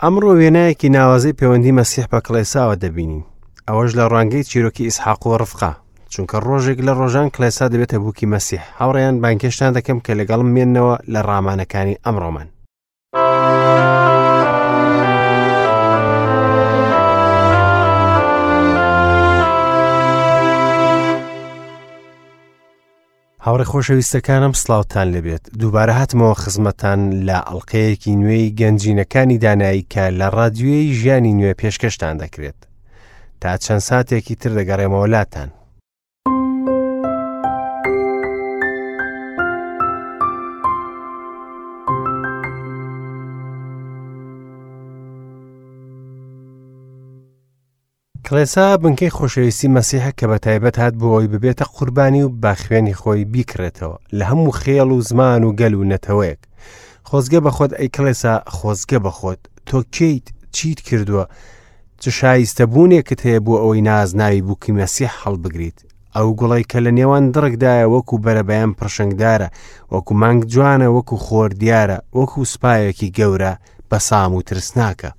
ئەمڕۆ وێنایەکی ناوازەی پەیوەندی مەسیح بە کڵێساوە دەبینین، ئەوەش لە ڕوانگەی چیرۆکی ئیسحاق و ڕفقە، چونکە ڕۆژێک لە ڕۆژان کڵێسا دەبێتە بووکی مەسیح. هاوڕێیان بانگهێشتان دەکەم کە لەگەڵم مێنەوە لە ڕامانەکانی ئەمڕۆمان. هاوڕێ خۆشەویستەکانم سڵاوتان لێبێت دووبارە هاتمەوە خزمەتان لە ئەڵلقەیەکی نوێی گەنجینەکانی دانایی کە لە ڕادیۆی ژیانی نوێ پێشکەشتان دەکرێت تا چەند ساتێکی تر دەگەڕێمەوە لاتان. کڵێسا بنکەی خۆشەویستی مەسیحە کە بە تایبەت هات بۆ ئەوی ببێتە قوربانی و بە خوێنی خۆی بیکڕێتەوە لە هەموو خێڵ و زمان و گەل و نەتەوەیەک. خۆزگە بە خۆت ئەی کڵێسا، خۆزگە بە خۆت. تۆ کێیت؟ چیت کردووە؟ چ شایستە بوونێکت هەیە بۆ ئەوەی نازناوی بووکی مەسیح هەڵبگریت؟ ئەو گوڵەی کە لە نێوان دڕکدایە وەکو بەرەبەیان پڕشنگدارە، وەکو مانگ جوانە، وەکو خۆر دیارە، وەکو سوپایەکی گەورە بەسام و ترسناکە.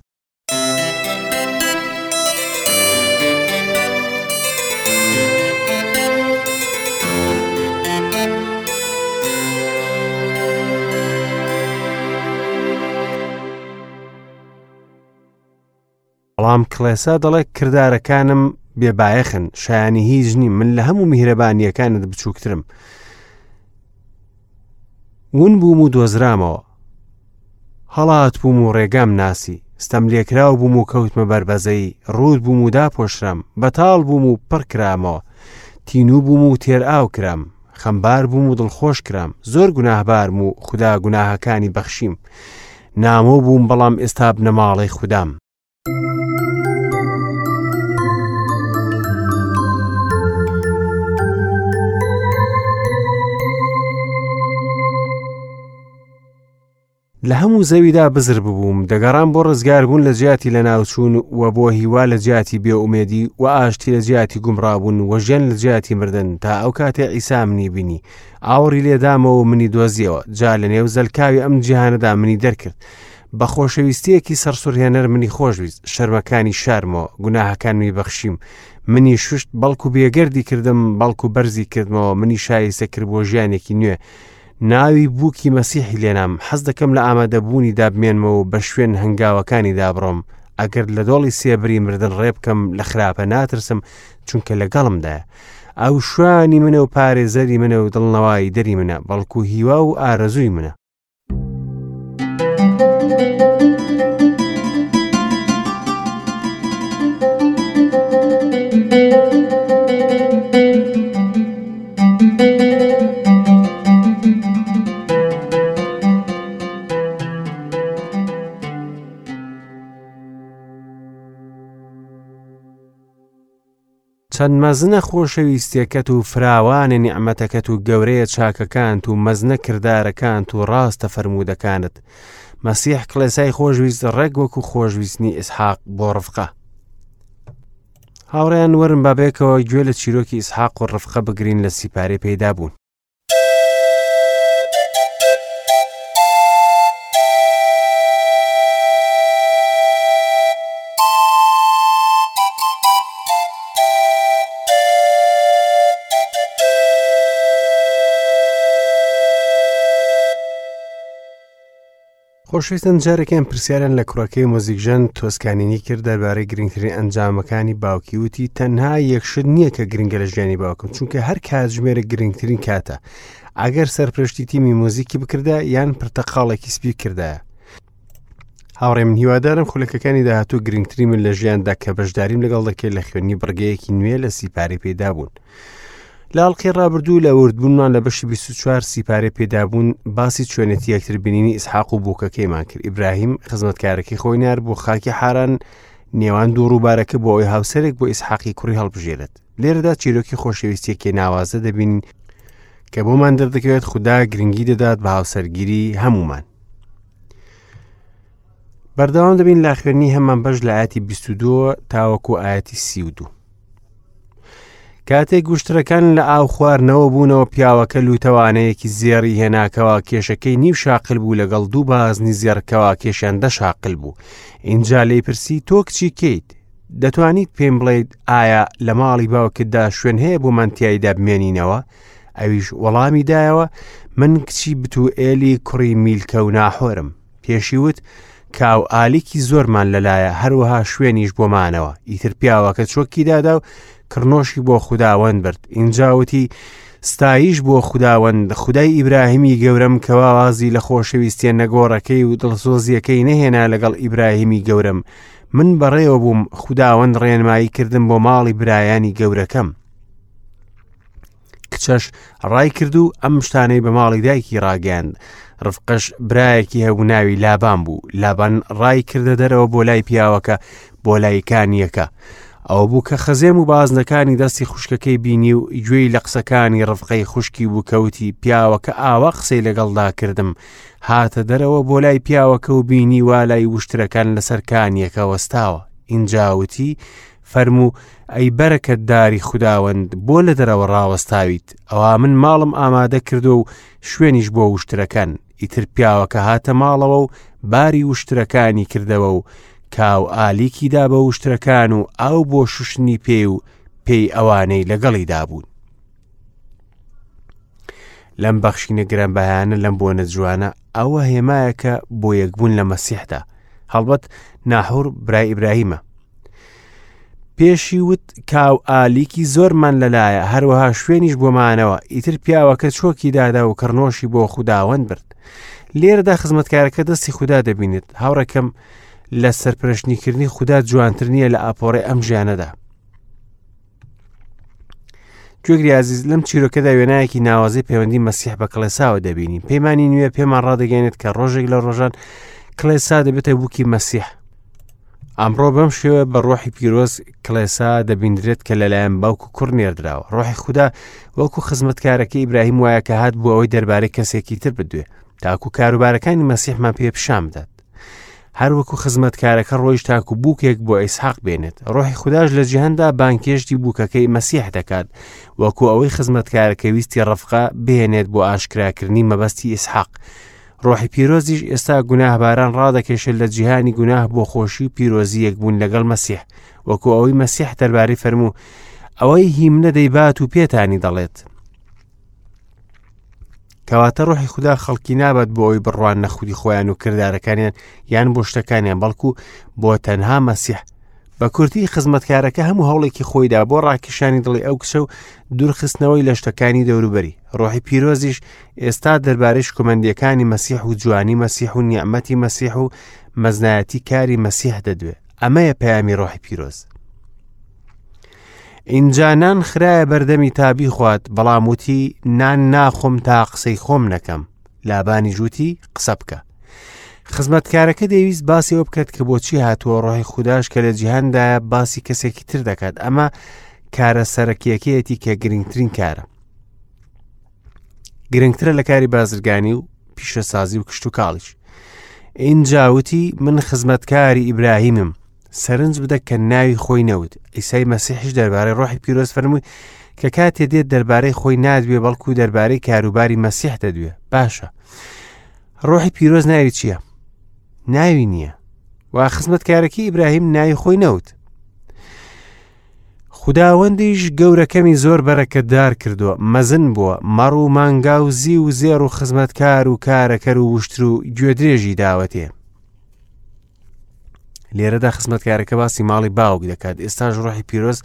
بەڵام کڵێسا دەڵێ کردارەکانم بێبایەخن شایانی هیچ نیم من لە هەموو میهرەبانیەکانت بچووکترم ون بووم و دۆزرامەوە هەڵات بووم و ڕێگام ناسی ستەم لێکراو بووم و کەوتمە بەربەزەی ڕووت بووم و داپۆشرام بەتاڵ بووم و پڕ کرامەوە تینوو بووم و تێر ئاو کرام خەمبار بووم و دڵخۆش کرام زۆر گوناهبارم و خودا گوناهەکانی بەخشیم نامۆ بووم بەڵام ئێستا بنەماڵەی خودام. لە هەموو زەویدا بزر ببووم، دەگەڕام بۆ ڕزگاربوون لە جیاتی لەناوچوون و بۆ هیوا لە جیاتی بێئومێدی و ئاشتی لە جیاتی گومڕابوون و ژیان لە جیاتی مردن تا ئەو کاتەی عیسا منی بینی ئاوڕی لێدامەوە و منی دۆزیەوە جا لە نێو زەلکاوی ئەم جیهانەدا منی دەرکرد بە خۆشەویستیەکی سەرسوڕهێنەر منی خۆشویست شەرمەکانی شارمەوە گوناهەکانمی بەخشیم منی شوشت بەڵکو بێگەردی کردم بەڵکو بەرزی کردمەوە منی شایستە کرد بۆ ژیانێکی نوێ ناوی بووکی مەسیحی لێنام حەز دەکەم لە ئامادەبوونیدا بمێنمەوە و بە شوێن هەنگاوەکانیدا بڕۆم ئەگەر لە دۆڵی سێبری مردن ڕێ بکەم لە خراپە ناترسم چونکە لەگەڵمدایە ئەو شوانی منە و پارێزەری منە و دڵنەوایی دەری منە بەڵکو هیوا و ئارەزووی منە. چەند مەزنە خۆشەویستیەکەت و فراوانە نیعمەتەکەت و گەورەیە چاکەکانت و مەزنە کردارەکانت و ڕاستە فەرموودەکانت مەسیح کڵێسای خۆشویست ڕێک وەکو خۆشویستنی ئیسحاق بۆ ڕفقە هاوڕێیان وەرن با بێکەوە گوێ لە چیرۆکی ئیسحاق و ڕفقە بگرین لە سیپارەی پەیدا بوون. خۆشویستن جارێکیان پرسیاریان لە کوڕەکەی مۆزیکژەن تۆسکانینی کرد دەربارەی گرنگترین ئەنجامەکانی باوکی وتی تەنها یەک شت نییە کە گرنگە لە ژیانی باوکم چونکە هەر کاتژمێرە گرنگترین کاتە ئەگەر سەرپرشتی تیمی مۆزیکی بکردا یان پرتەقاڵێکی سپی کردایە هاوڕێ من هیوادارم خولەکەکانی داهاتوو گرنگترین من لە ژیاندا کە بەشداریم لەگەڵ دەکرێت لە خوێندنی بڕگەیەکی نوێ لە سیپارەی پێدا بوون. لە ئەڵقەی ڕابردوو لە وردبوونمان لە بەشی 24 سیپارەی پێدابوون باسی چۆنێتی یەکتر بینینی ئیسحاق و بووکەکەیمان کرد ئیبراهیم خزمەتکارەکەی خۆی نار بۆ خاکی حاران نێوان دوو ڕووبارەکە بۆ ئەوەی هاوسەرێک بۆ ئیسحاقی کوڕی هەڵبژێرێت لێرەدا چیرۆکی خۆشەویستیەکی ناوازە دەبینین کە بۆمان دەردەکەوێت خودا گرنگی دەدات بە هاوسەرگیری هەمومان بەردەوام دەبین لە خوێندنی هەمان بەش لە ئاەتی 22 تاوەکو ئاەتی 32. کاتێک وشترەکان لە ئاو خواردنەوە بوونەوە پیاوەکە لوتەوانەیەکی زێڕی هێنا کەوا کێشەکەی نیو شاقل بوو لەگەڵ دوو بازنی زێڕ کەوا کێشیان دە شاقل بوو ئینجا لێی پرسی تۆ کچی کێیت دەتوانیت پێم بڵێیت ئایا لە ماڵی باوکتدا شوێن هەیە بۆ من تیایدا بمێنینەوە ئەویش وەڵامی دایەوە من کچی بتوئێلی کوڕی میلکە و ناحۆرم پێشی وت کاو ئالیکی زۆرمان لەلایە هەروەها شوێنیش بۆ مانەوە ئیتر پیاوەکە چۆکی دادا و کڕنۆشی بۆ خوداوەند برد ئینجا وتی ستایش بۆ خوداوەند خودای ئیبراهیمی گەورەم کەوا وازی لە خۆشەویستیە نەگۆڕەکەی و دڵسۆزیەکەی نەهێنا لەگەڵ ئیبراهیمی گەورەم من بەڕێوە بووم خوداوەند ڕێنمایی کردم بۆ ماڵی برایانی گەورەکەم کچەش ڕای کرد و ئەم شتانەی بە ماڵی دایکی ڕاگەیاند ڕفقەش برایەکی هەبوو ناوی لابان بوو لابان ڕای کردە دەرەوە بۆ لای پیاوەکە بۆ لای کانیەکە ئەوە بوو کە خەزێم و بازنەکانی دەستی خوشکەکەی بینی و گوێی لە قسەکانی ڕفقەی خوشکی بوو کەوتی پیاوەکە ئاوا قسەی لەگەڵدا کردم هاتە دەرەوە بۆ لای پیاوەکە و بینی وا لای وشترەکان لەسەر کانیەکە وەستاوە ئینجاوتی فەرموو، ئەی بەرەکەتداری خوداوەند، بۆ لە دەرەوە ڕاوەستاویت؟ ئەوا من ماڵم ئامادە کردووە و شوێنیش بۆ وشترەکان. ئیتر پیاوەکە هاتە ماڵەوە و باری وشترەکانی کردەوە و کاو ئالیکی دا بە وشترەکان و ئاو بۆ شوشتنی پێی و پێی ئەوانەی لەگەڵیدا بوون. لەم بەخشینە گرانبەهایانە لەم بۆنە جوانە ئەوە هێمایەکە بۆ یەکبوون لە مەسیحدا هەڵبەت ناحور برای ئیبراهیمە پێشی وت کاو ئالیکی زۆرمان لەلایە هەروەها شوێنیش بۆمانەوە ئیتر پیاوەکە چۆکی دادا و کڕنۆشی بۆ خوداوەند برد لێرەدا خزمەتکارەکە دەستی خودا دەبینێت هاوڕێکەم لە سەرپرشنیکردنی خودا جوانتر نییە لە ئاپۆڕی ئەم ژیانەدا گوێگری ئازیز لەم چیرۆکەدا وێنایەکی ناوازەی پەیوەندی مەسیح بە کڵێساوە دەبینین پەیمانی نوێ پێمان ڕادەگەێنێت کە ڕۆژێک لە ڕۆژان کڵێسا دەبێتە بووکی مەسیح ئەمڕۆ بەم شێوە بە ڕۆحی پیرۆز کڵێسا دەبیندرێت کە لەلایەن باوک و کوڕ نێردراوە ڕۆحی خودا وەکو خزمەتکارەکە ئیبراهیم وایە کە هات بۆ ئەوەی دەربارەی کەسێکی تر بدوێ تاکو کاروبارەکانی مەسیحمان پێ پیشان بدات هەروەکو خزمەتکارەکە ڕۆیشت تاکو بووکێک بۆ ئیسحاق بێنێت ڕۆحی خوداش لە جیهاندا بانکێشتی بووکەکەی مەسیح دەکات وەکو ئەوەی خزمەتکارەکە ویستی ڕفقە بهێنێت بۆ ئاشکراکردنی مەبەستی ئیسحاق ڕۆحی پیرۆزیش ئێستا گوناهباران ڕادەکێشێت لە جیهانی گوناه بۆ خۆشی و پیرۆزی یەکبوون لەگەڵ مەسیح وەکو ئەوەی مەسیح دەربارەی فەرموو ئەوەی هیمنە دەیبات و پێتانی دەڵێت کەواتە ڕۆحی خودا خەڵکی نابات بۆ ئەوی بڕوان نە خودی خۆیان و کردارەکانیان یان بۆ شتەکانیان بەڵکو بۆ تەنها مەسیح بە کورتی خزمەتکارەکە هەموو هەوڵێکی خۆیدا بۆ ڕاکیشانی دڵی ئەو کچە و دوورخستنەوەی لە شتەکانی دەوروبەری ڕۆحی پیرۆزیش ئێستا دەربارەی شکۆمەندیەکانی مەسیح و جوانی مەسیح و نیعمەتی مەسیح و مەزنایەتی کاری مەسیح دەدوێ ئەمەیە پەیامی ڕۆحی پیرۆز ئینجا نان خرایە بەردەمی تا بیخوات بەڵام وتی نان ناخۆم تا قسەی خۆم نەکەم لابانی ژووتی قسە بکە خزمەتکارەکە دەیویست باسی ئەوە بکات کە بۆچی هاتووە ڕۆحی خودداش کە لە جیهاندایە باسی کەسێکی تر دەکات ئەمە کارە سەرەکیەکەیەتی کە گرنگترین کارە گرنگترە لە کاری بازرگانی و پیشەسازی و کشتتوکاڵیش ئینجا وتی من خزمەتکاری ئیبراهیمم سەرنج بدە کە ناوی خۆی نەوت ئیسای مەسیحیش دەربارەی ڕۆحی پیرۆز فەرمووی کە کاتێ دێت دەربارەی خۆی نادوێ بەڵکو دەربارەی کاروباری مەسیح دەدوێ باشە ڕۆحی پیرۆز ناوی چییە؟ ناوی نییە و خزمەتکارەکەی ئیبراهیم ناوی خۆی نەوت خوداوەندیش گەورەکەمی زۆر بەرەکەتدار کردووە مەزن بووە مەڕ و مانگا و زی و زێڕ و خزمەتکار و کارەکەر و وشتر و گوێدرێژی داوەتێ لێرەدا خزمەتکارەکە باسی ماڵی باوک دەکات ئێستاش ڕۆحی پیرۆز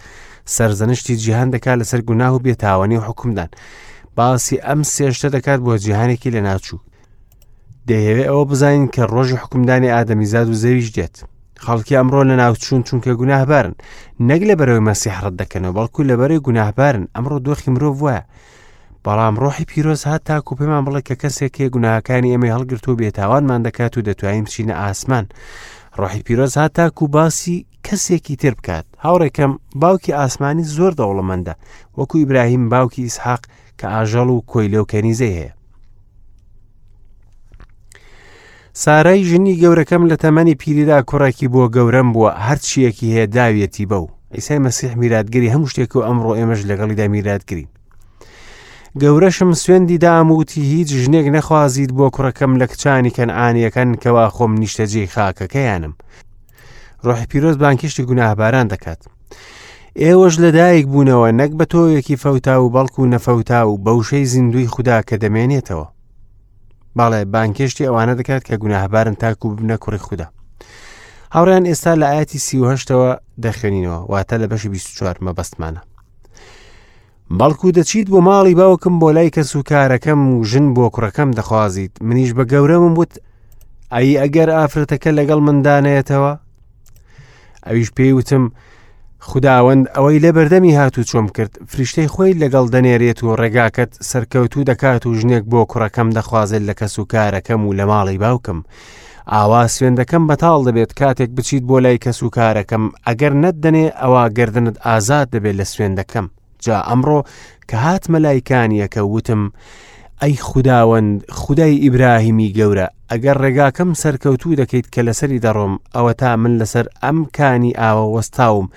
سەرزەنشتی جیهان دەکات لەسەر گوناه و بێتاوانی و حکومدان باسی ئەم سێشتە دەکات بۆ جیهانێکی لەناچوو دەیەوێ ئەوە بزانین کە ڕۆژی حکومدانی ئادەمیزاد و زەویش دێت خەڵکی ئەمڕۆ لە ناوچوون چونکە گوناهبارن نەک لە بەرەوەی مەسیح ڕەت دەکەنەوە بەڵکو لە بەرەی گوناهبارن ئەمڕۆ دۆخی مرۆڤ وایە بەڵام ڕۆحی پیرۆز هات تاکو پێمان بڵێ کە کەسێک هەیە گوناهەکانی ئێمەی هەڵگرت و بێتاوانمان دەکات و دەتوانین بچینە ئاسمان ڕۆحی پیرۆز هات تاکو باسی کەسێکی تر بکات هاوڕێکەم باوکی ئاسمانی زۆر دەوڵەمەندە وەکو ئیبراهیم باوکی ئیسحاق کە ئاژەڵ و کۆیلە و کەنیزەی هەیە سارای ژنی گەورەکەم لە تەمەنی پیریدا کوڕێکی بۆ گەورەم بووە هەرچیەکی هەیە داویەتی بەو. عیسای مەسیح میراتگری هەموو شتێک و ئەمڕۆ ئێمەش لەگەڵیدا میراتگرین. گەورەشم سوێندی دام وتی هیچ ژنێک نەخوازیت بۆ کوڕەکەم لە کچانی کەنعانیەکان کەوا خۆم نیشتەجێی خاکەکەیانم. ڕۆحی پیرۆز بانکیشتی گوناهباران دەکات. ئێوەش لەدایک بوونەوە نەک بە تۆوێکی فەوتا و بەڵکو نەفەوتا و بەوشەی زیندوی خودا کە دەمێنێتەوە. بەڵێ بانکێشتی ئەوانە دەکات کە گوناهبارن تاکو ببنە کوڕی خودا. هاوڕیان ئێستا لە ئاەتی 38ەوە دەخوێنینەوە واتە لە بەشی 24 مەبەستمانە. بەڵکو دەچیت بۆ ماڵی باوکم بۆ لای کەس و کارەکەم و ژن بۆ کوڕەکەم دەخوازیت منیش بە گەورەمم وت ئەی ئەگەر ئافرەتەکە لەگەڵ مندانەیەتەوە ئەویش پێی وتم خوداوەند ئەوەی لە بەردەمی هاتوو چۆم کرد فریشتەی خۆی لەگەڵ دەنێرێت و ڕێگاکەت سەرکەوتوو دەکات و ژنێک بۆ کوڕەکەم دەخوازێت لە کەس و کارەکەم و لە ماڵی باوکم ئاوا سوێندەکەم بەتاڵ دەبێت کاتێک بچیت بۆ لای کەس و کارەکەم ئەگەر نەتدەنێ ئەوا گردنت ئازاد دەبێت لە سوێندەکەم جا ئەمڕۆ کە هاتمە لای کانیەکە وتم ئەی خوداوەند خودای ئیبراهیمی گەورە ئەگەر ڕێگاکەم سەرکەوتوو دەکەیت کە لەسەری دەڕۆم ئەوەتا من لەسەر ئەم کانی ئاوە وەستاوم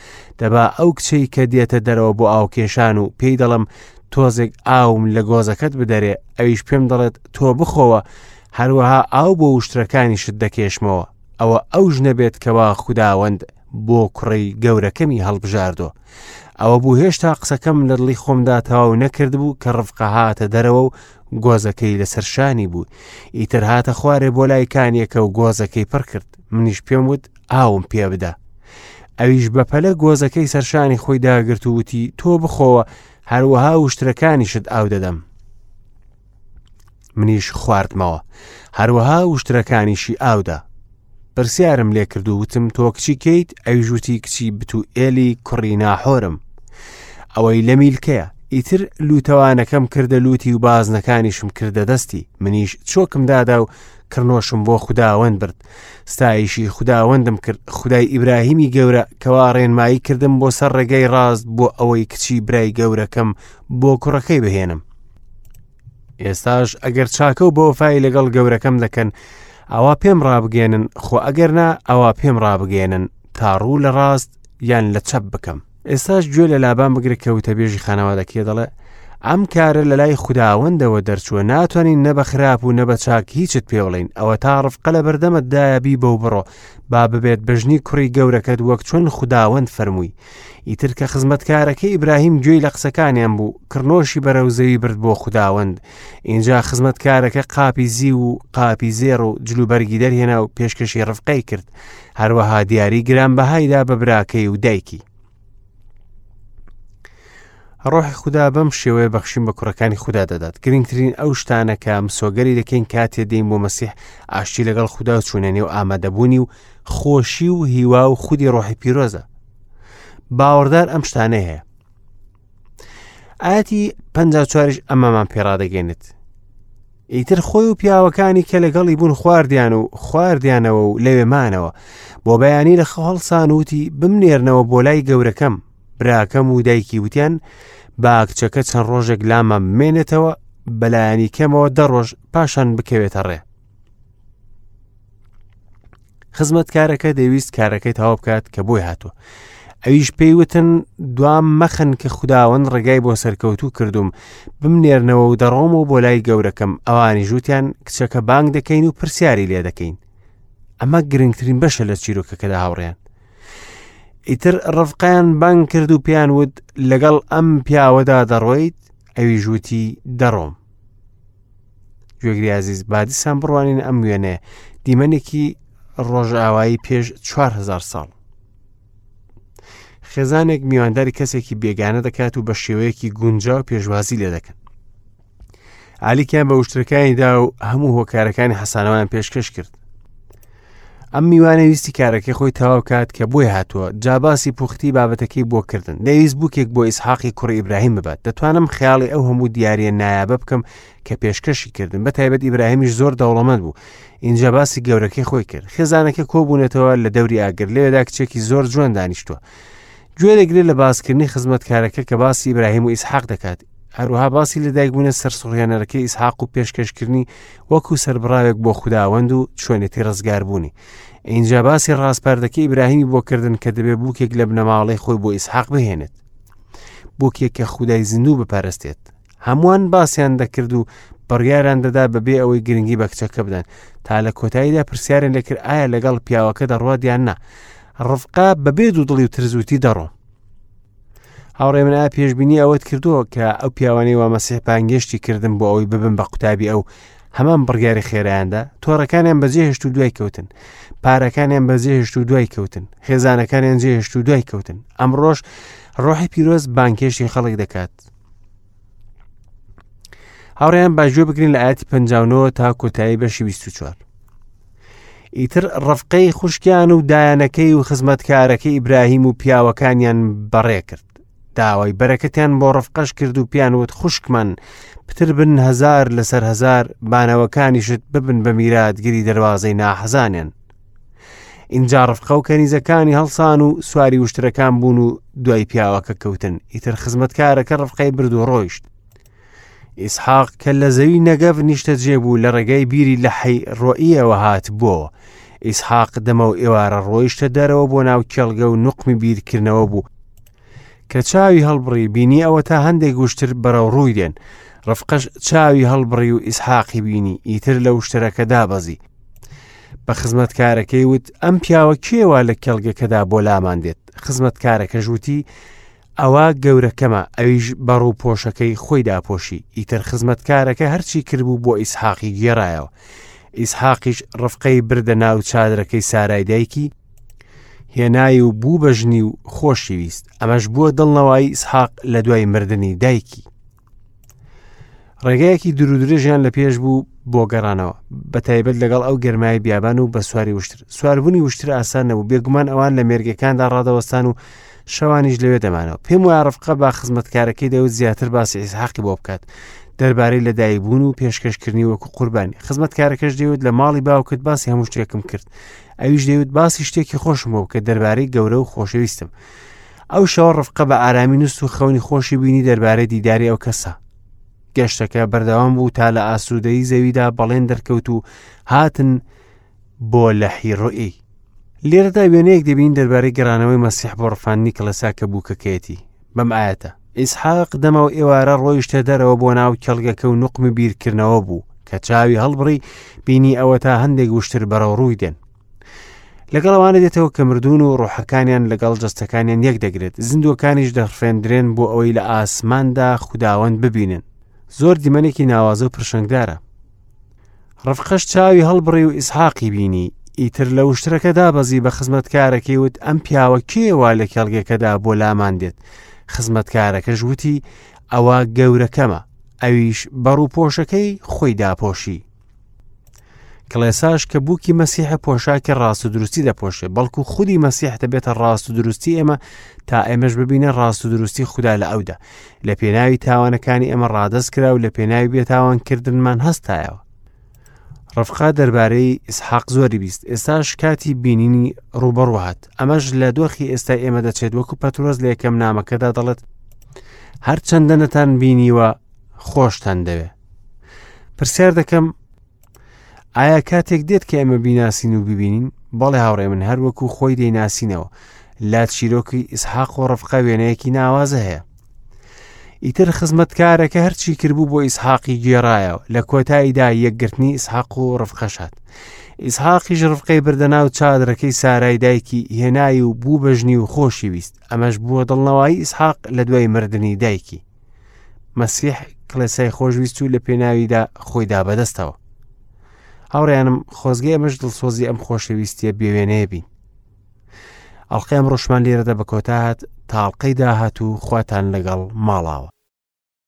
دەبا ئەو کچەی کە دێتە دەرەوە بۆ ئاوکێشان و پێی دەڵم تۆزێک ئاوم لە گۆزەکەت بدەرێ ئەویش پێم دەڵێت تۆ بخۆوە هەروەها ئاو بۆ وشترەکانیشت دەکێشمەوە ئەوە ئەو ژنە بێت کەوا خوداوەند بۆ کوڕی گەورەکەمی هەڵبژاردۆ ئەوە بوو هێشتا قسەکەم لە دڵی خۆمدا تەواو نەکردبوو کە ڕفقە هاتە دەرەوە و گۆزەکەی لەسەر شانی بوو ئیتر هاتە خوارێ بۆ لای کانیەکە و گۆزەکەی پڕ کرد منیش پێم وت ئاوم پێ بدە ئەویش بەپەلە گۆزەکەی سەرشانی خۆی داگرت و وتی تۆ بخۆوە هەروەها وشترەکانیشت ئاو دەدەم منیش خواردمەوە هەروەها وشترەکانیشی ئاودا پرسیارم لێ کرد و وتم تۆ کچی کەیت ئەویش وتی کچی بتوئێلی کوڕی ناحۆرم ئەوەی لە میلکەیە ئیتر لوتەوانەکەم کردە لوتی و بازنەکانیشم کردە دەستی منیش چۆکم دادا و کڕنۆشم بۆ خوداوەند برد ستایشی خوداوەندم کرد خدای ئیبراهیمی گەورە کەوا ڕێنمایی کردم بۆ سەر ڕێگەی ڕاست بۆ ئەوەی کچی برای گەورەکەم بۆ کوڕەکەی بهێنم ئێستاش ئەگەر چاکە و بەوەفای لەگەڵ گەورەکەم دەکەن ئەوا پێم ڕابگەێنن خۆ ئەگەر نا ئەوا پێم ڕابگەێنن تا ڕوو لە ڕاست یان لە چەپ بکەم ئێستاش گوێ لە لابان بگرە کە وتەبێژی خانەوادەکەی دەڵێ ئەم کارە لە لای خوداوەندەوە دەرچووە ناتوانین نە بە خراپ و نە بە چاک هیچت پێ بڵین ئەوە تا ڕفقە لە بەردەمت دایە بی بەو بڕۆ با ببێت بەژنی کوڕی گەورەکەت وەک چۆن خوداوەند فەرمووی ئیتر کە خزمەتکارەکەی ئیبراهیم گوێی لە قسەکانیان بوو کڕنۆشی بەرەو زەوی برد بۆ خوداوەند ئینجا خزمەتکارەکە قاپی زیو و قاپی زێڕ و جلوبەرگی دەرهێنا و پێشکەشی ڕفقەی کرد هەروەها دیاری گرانبەهایدا بە براکەی و دایکی ڕۆحی خودا بەم شێوەیە بەخشین بە کوڕەکانی خودا دەدات گرنگترین ئەو شتانە کە مسۆگەری دەکەین کاتێ دێین بۆ مەسیح ئاشتی لەگەڵ خودا و چوونە نێو ئامادەبوونی و خۆشی و هیوا و خودی ڕۆحی پیرۆزە باوەڕدار ئەم شتانەی هەیە ئاەتی پ چواریش ئەمەمان پێڕادەگەێنێت ئیتر خۆی و پیاوەکانی کە لەگەڵی بوون خواردیان و خواردیانەوە و لەوێ مانەوە بۆ بەیانی لە خەو هەڵسان وتی بمنێرنەوە بۆ لای گەورەکەم براکەم و دایکی وتیان با کچەکە چەند ڕۆژێک لامان بمێنێتەوە بەلایەنی کەمەوە دە ڕۆژ پاشان بکەوێتە ڕێ خزمەتکارەکە دەویست کارەکەی تەواو بکات کە بۆی هاتووە ئەویش پێی وتن دوام مەخن کە خوداوەند ڕێگای بۆ سەرکەوتوو کردوم بمنێرنەوە و دەڕۆمەوە بۆ لای گەورەکەم ئەوانی ژووتیان کچەکە بانگ دەکەین و پرسیاری لێ دەکەین ئەمە گرنگترین بەشە لە چیرۆکەکەدا هاوڕێیان ئیتر ڕفقیان بانگ کرد و پێیان وت لەگەڵ ئەم پیاوەدا دەڕۆیت ئەوی ژووتی دەڕۆم گوێگری ئازیز با دیسان بڕوانین ئەم وێنەیە دیمەنێکی ڕۆژئاوایی پێش 4هزار ساڵ خێزانێک میوانداری کەسێکی بێگانە دەکات و بە شێوەیەکی گونجاو پێشوازی لێ دەکەن ئالیکیان بە وشترەکانی دا و هەموو هۆکارەکانی حەسانەوەیان پێشکەش کرد ئەم میوانە ویستی کارەکەی خۆی تەواو کات کە بۆی هاتووە جا باسی پوختی بابەتەکەی بۆ کردن دەویست بووکێک بۆ ئیسحاقی کوڕی ئیبراهیم ببات دەتوانم خەیاڵی ئەو هەموو دیاریە نایابە بکەم کە پێشکەشی کردن بە تایبەت ئیبراهیمیش زۆر دەوڵەمەند بوو اینجا باسی گەورەکەی خۆی کرد خێزانەکە کۆبوونەتەوە لە دەوری ئاگر لەوێدا کچێکی زۆر جوان دانیشتووە گوێ دەگرێت لە باسکردنی خزمەتکارەکە کە باسی ئیبراهیم و ئیسحاق دەکات هەروەها باسی لەدایکبوونە سەرسوڕهێنەرەکەی ئیسحاق و پێشکەشکردنی وەکو سەربڕاوێک بۆ خوداوەند و چۆنێتی ڕزگاربوونی. ئینجا باسی ڕاسپاردەکەی ئیبراهیمی بۆ کردن کە دەبێ بووکێک لە بنەماڵەی خۆی بۆ ئیسحاق بهێنێت. بووکێک کە خودای زیندوو بپەرستێت. هەمووان باسیان دەکرد و بڕیاریان دەدا بەبێ ئەوەی گرنگی بە کچەکە بدەن تا لە کۆتاییدا پرسیاریان لێکرد ئایا لەگەڵ پیاوەکە دەڕوات یان نا ڕفقا بەبێ دوودڵی و ترزوتی دەڕۆم هاوڕێ من ئایا پێشبینی ئەوەت کردووە کە ئەو پیاوانەی وا مەسیح بانگێشتی کردن بۆ ئەوەی ببن بە قوتابی ئەو هەمان بڕیاری خێرایاندا تۆڕەکانیان بەجێهێشت و دوای کەوتن پارەکانیان بەجێهێشت و دوای کەوتن خێزانەکانیان جێهێشت و دوای کەوتن ئەمڕۆژ ڕۆحی پیرۆز بانکێشتی خەڵک دەکات هاوڕێیان با گوێ بگرین لە ئاەتی 59 تا کۆتایی بەشی 24 ئیتر ڕفقەی خوشکیان و دایانەکەی و خزمەتکارەکەی ئیبراهیم و پیاوەکانیان بەڕێ کرد داوای بەرەکەتیان بۆ ڕفقەش کرد و پیان وت خوشکمان پتر بن هزار لەسەر هزار بانەوەکانیشت ببن بە میراتگری دەواازەی ناحەزانیان ئینجا ڕفقە و کەنیزەکانی هەڵسان و سواری وشترەکان بوون و دوای پیاوەکە کەوتن ئیتر خزمەتکارەکە ڕفقەی برد و ڕۆیشت ئیسحاق کە لە زەوی نەگەڤ نیشتەجێ بوو لە ڕێگای بیری لە حەی ڕۆییەوە هاتبووەوە. ئیسحاق دەمە و ئێوارە ڕۆیشتە دەرەوە بۆ ناو کێڵگە و نوقمی بیرکردنەوە بوو. کە چاوی هەڵبڕی بینی ئەوە تا هەندێک وشتر بەرەو ڕووی دێن. ڕفقەش چاوی هەڵبڕی و ئیسحاقی بینی ئیتر لە وشترەکە دابەزی. بە خزمەتکارەکەی وت ئەم پیاوە کێوە لە کێڵگەکەدا بۆ لامان دێت خزمەتکارەکەش وتی ئەوە گەورەکەمە، ئەویش بە ڕووپۆشەکەی خۆی داپۆشی، ئیتر خزمەتکارەکە هەرچی کردبوو بۆ ئیسحاقی گێڕایەوە. ئیسحاقیش ڕفقەی بردە ناو چادرەکەی سارای دایکی، هێنای و بوو بە ژنی و خۆشی ویست. ئەمەش بووە دڵنەوایی ئیسحاق لە دوای مردنی دایکی. ڕێگایەکی دوورودرێژیان لە پێش بوو بۆ گەڕانەوە بە تایبەت لەگەڵ ئەو گەرمای بیابان و بە سواری وشتر سواربوونی وشتر ئاسان نەبوو بێگومان ئەوان لە مێرگەکاندا ڕادەوەستان و شەوانیش لەوێ دەمانەوە پێم وایە ڕفقە با خزمەتکارەکەی دەوت زیاتر باسی ئیسحاقی بۆ بکات دەربارەی لەدایکبوون و پێشکەشکردنی وەکو قوربانی خزمەتکارەکەش دەیوت لە ماڵی باوکت باسی هەموو شتێکم کرد ئەویش دەیوت باسی شتێکی خۆشم بۆ بکە دەربارەی گەورە و خۆشەویستم ئەو شەوە ڕفقە بە ئارامی نووست و خەونی خۆشی بینی دەربارەی دیداری ئەو کەسە. گەشتەکە بەردەوام بوو تا لە ئاسوودەیی زەویدا بەڵێن دەرکەوت و هاتن بۆ لەحی ڕوئی. لێرەدا وێنەیەک دەبین دەربارەی گەڕانەوەی مەسیح بۆ ڕفاندنی کڵێسا کە بووکەکەیەتی بەم ئاەتە ئیسحاق دەمەو ئێوارە ڕۆیشتە دەرەوە بۆ ناو کێڵگەکە و نوقمی بیرکردنەوە بوو کە چاوی هەڵبڕی بینی ئەوە تا هەندێک وشتر بەرەو ڕووی دێن لەگەڵ ئەوانە دێتەوە کە مردوون و ڕۆحەکانیان لەگەڵ جەستەکانیان یەک دەگرێت زیندووەکانیش دەڕفێندرێن بۆ ئەوەی لە ئاسماندا خوداوەند ببینن زۆر دیمەنێکی ناوازە و پرشنگدارە ڕفقەش چاوی هەڵبڕی و ئیسحاقی بینی ئیتر لە وشترەکە دابەزی بە خزمەتکارەکەی وت ئەم پیاوە کێوە لە کێڵگەکەدا بۆ لامان دێت خزمەتکارەکەش وتی ئەوە گەورەکەمە ئەویش بەڕووپۆشەکەی خۆی داپۆشی کڵێساش کە بووکی مەسیحە پۆشاکی ڕاست و دروستی دەپۆشێ بەڵکو خودی مەسیح دەبێتە ڕاست و دروستی ئێمە تا ئێمەش ببینە ڕاست و دروستی خودا لە ئەودا لە پێناوی تاوانەکانی ئێمە ڕادەست کرا و لە پێناوی بێتاوان کردنمان هەستایەوە ڕفقا دەربارەی ئیسحاق زۆری بیست ئێستاش کاتی بینینی ڕوبەڕوو هات ئەمەش لە دۆخی ئێستا ئێمە دەچێت وەکو پەترۆس لە یەکەم نامەکەدا دەڵێت هەرچەندە نەتان بینیوە خۆشتان دەوێ پرسیار دەکەم ئایا کاتێک دێت کە ئێمە بیناسین و ببینین بەڵێ هاوڕێ من هەر وەکو خۆی دەیناسینەوە لا چیرۆکی ئیسحاق و ڕفقە وێنەیەکی ناوازە هەیە ئیتر خزمەتکارەکە هەرچی کردبوو بۆ ئیسحاقی گێڕایەوە لە کۆتاییدا یەکگرتنی ئیسحاق و ڕفقەشات ئیسحاقیش ڕفقەی بردە ناو چادرەکەی سارای دایکی هێنای و بوو بەژنی و خۆشی ویست ئەمەش بووە دڵنەوایی ئیسحاق لە دوای مردنی دایکی مەسیح کڵێسای خۆشویست و لە پێناویدا خۆی دا بەدەستەوە هاوڕێیانم خۆزگە ئێمەش دڵسۆزی ئەم خۆشەویستیە بێوێنەیە بین ئەڵلقەی ئەمڕۆشمان لێرەدا بە کۆتا هات تاڵقەی داهات و خواتان لەگەڵ ماڵاوە.